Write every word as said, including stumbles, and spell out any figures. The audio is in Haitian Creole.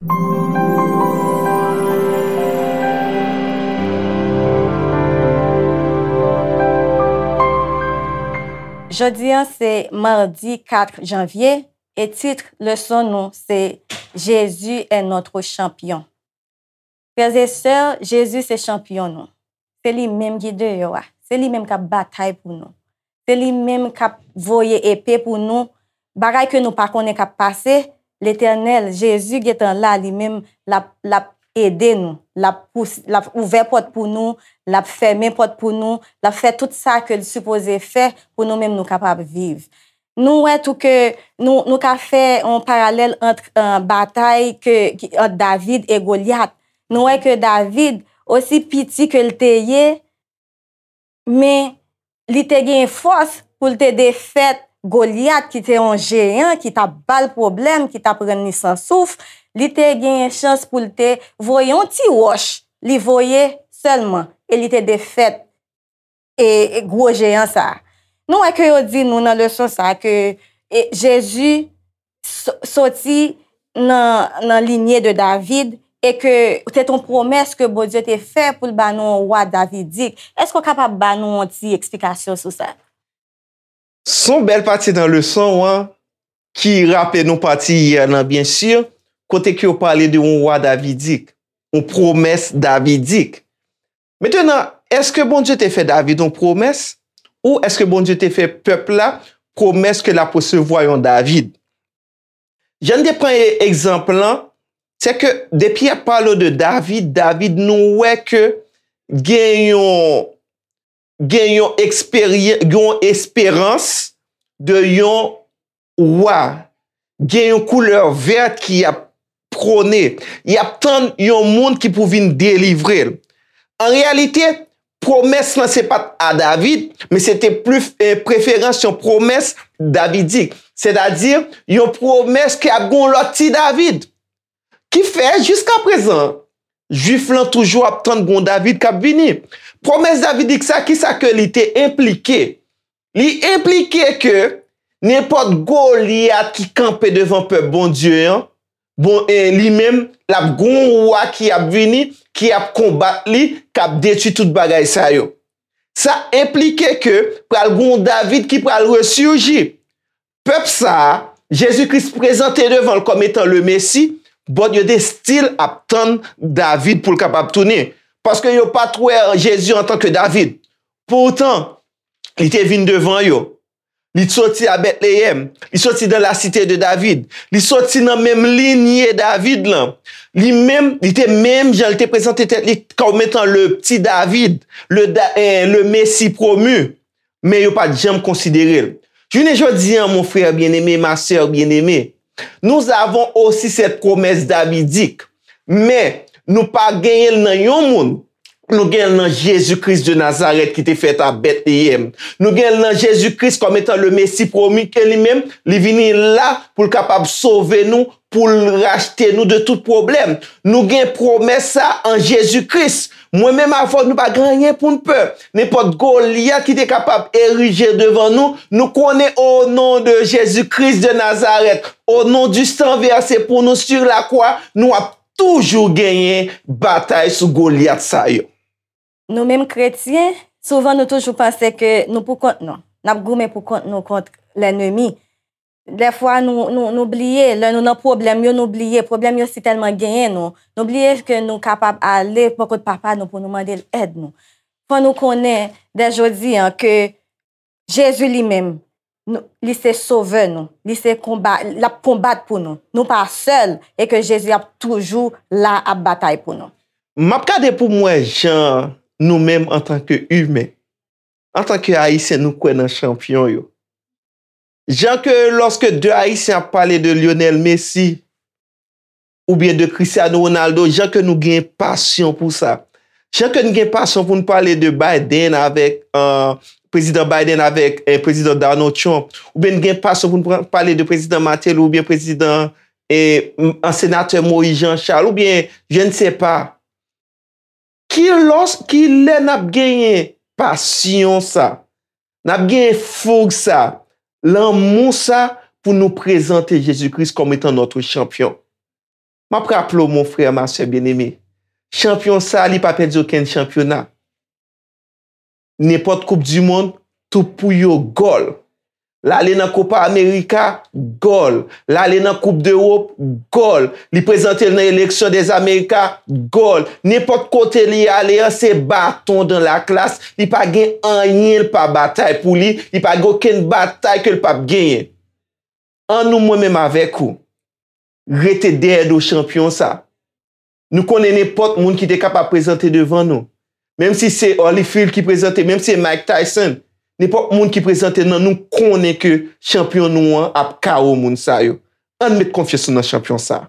Jodi a se madi kat janvye e tit leson nou se Jésus est notre champion. Frères et sœurs, Jezi se chanpyon nou. Se li menm ki deyò a. Se li menm k ap batay pou nou. Se li menm k ap voye epe pou nou. Bagay ke nou pa konnen k ap pase, Letènèl, Jezi gentan la, li menm, l ap, l ap ede nou. L ap pous-, l ap ouvè pòt pou nou, l ap fèmen pòt pou nou, l ap fè tout sa ke l sipoze fè pou nou menm nou kapab viv. Nou wè tou ke nou, nou ka fè yon paralèl ant, eh, batay ke, ki, ant David e Golyat. Nou wè ke David, osi piti ke l te ye, men li te gen fòs pou l te defèt Golyat, ki te yon jeyan, ki t ap ba l pwoblèm, ki t ap rann li san souf. Li te gen chans pou l te voye yon ti wòch, li voye sèlman, e li te defèt e, e gwo jeyan sa a. Nou wè ke yo di nou nan leson sa a ke, e, Jezi so-, soti nan, nan linye de David e ke se t yon pwomès ke Bondye te fè pou l ba nou yon wa davidik. Èske w kapab ba nou yon ti eksplikasyon sou sa? Se yon bèl pati nan leson an ki raple nou pati yè lan, byen si, kote ke yo pale de yon wa davidik, yon pwomès davidik. Mentnan, èske Bondye te fè David yon pwomès? Ou èske Bondye te fè pèp la pwomès ke l ap resevwa yon David? Jan n te pran e-, egzanp lan, se ke depi y ap pale de David, David, nou wè ke gen yon, gen yon eksperyan-, gen yon esperans de yon wa, gen yon koulè vèt ki ap pwone. Y ap tann yon moun ki pou vin delivre l. An reyalite, pwomès lan se pa t a David, men se te plis, eh, preferans yon pwomès davidik, sètadi yon pwomès ke ap gen yon lòt ti David. Ki fè, jiskaprezan, Jwif lan toujou ap tann gon David k ap vini. Pwomès davidik sa, kisa ke li te enplike? Li enplike ke nenpòt Golyat ki kanpe devan pèp Bondye an, bon, e li menm, l ap gon wa ki ap vini, ki ap konbat li, k ap detwi tout bagay sa yo. Sa enplike ke pral gon David ki pral resiji. Pèp sa a, Jezi Kris prezante devan l kòm etan le Mesi, but yo te still ap tann David pou l kapab tounen. Paske yo pa t wè Jezi antanke David. Poutan, li te vin devan yo. Li soti a Bètleyèm. Li soti dans la cité de David. Li soti nan menm linye David lan. Li menm, li te menm jan li te prezante tèt li kòm etan le petit David, le Da-, eh, le Messie promu. Men yo pa t janm konsidere l. Jounen jodi a, mon frère bien-aimé, ma sœur bien-aimée, nous avons aussi cette promesse davidique. Men, nou pa genyen l nan yon moun. Nou genyen l nan Jezi Kris de Nazarèt ki te fèt a Bètleyèm. Nou genyen l nan Jezi Kris kòm etan le Mesi pwomi ke li menm, li vini la pou l kapab sove nou, pou l rachte nou de tout pwoblèm. Nou gen pwomès sa an Jezi Kris. Mwen menm avè w, nou pa gen anyen pou n pè. Nenpòt Golyat ki te kapab erije devan nou, nou konnen, au nom de Jésus-Christ de Nazareth, au nom du sang versé pour nous sur la croix, nou ap toujou genyen batay sou Golyat sa yo. Nou menm kretyen, souvan nou toujou panse ke nou pou kont nou. N ap goumen pou kont nou kont lènmi. Dèfwa nou, nou, nou bliye, lè nou nan pwoblèm yo, nou bliye. Pwoblèm yo si tèlman genyen nou. Nou bliye ke nou kapab ale bò kot Papa nou pou nou mande l èd nou. Fò nou konnen, dè jodi a, ke Jezi li menm, nou, li se Sovè nou. Li se konba, l ap konbat pou nou. Nou pa sèl, e ke Jezi ap toujou la ap batay pou nou. M ap gade pou m wè jan nou menm antanke imen, antanke Ayisyen, nou kwè nan chanpyon yo. Jan ke lòske de Ayisyen ap pale de Lionel Messi oubyen de Cristiano Ronaldo, jan ke nou gen pasyon pou sa. Jan ke n gen pasyon pou n pale de Biden avèk, eh, Prezidan Biden avèk, eh, Prezidan Donald Trump, oubyen n gen pasyon pou n pran, pale de Prezidan Martelly oubyen Prezidan, eh, m-, an Senatè Moïse Jean Charles, oubyen, je ne sais pas. Ki lòs, ki lè n ap genyen pasyon sa, n ap genyen foug sa, lanmou sa pou nou prezante Jezi Kris kòm etan notre champion? M ap raple w, mon frè, ma sè byeneme, chanpyon sa, li pa pèdi okenn chanpyona. Nenpòt koup di mond, tout pou yo gòl. L ale nan Copa America, gòl. L ale nan Koup Dewòp, gòl. Li prezante l nan eleksyon dèz Amerika, gòl. Nenpòt kote li ale an, se baton dan laklas. Li pa gen anyen l pa batay pou li. Li pa gen okenn batay ke l p ap genyen. An nou, mwen menm avèk ou, rete dèyè do chanpyon sa. Nou konnen nenpòt moun ki te kapab prezante devan nou. Menm si se Holyfield ki prezante, menm si se Mike Tyson, nenpòt moun ki prezante nan nou konnen ke chanpyon nou an ap K O moun sa yo. Ann met konfyans nou nan chanpyon sa.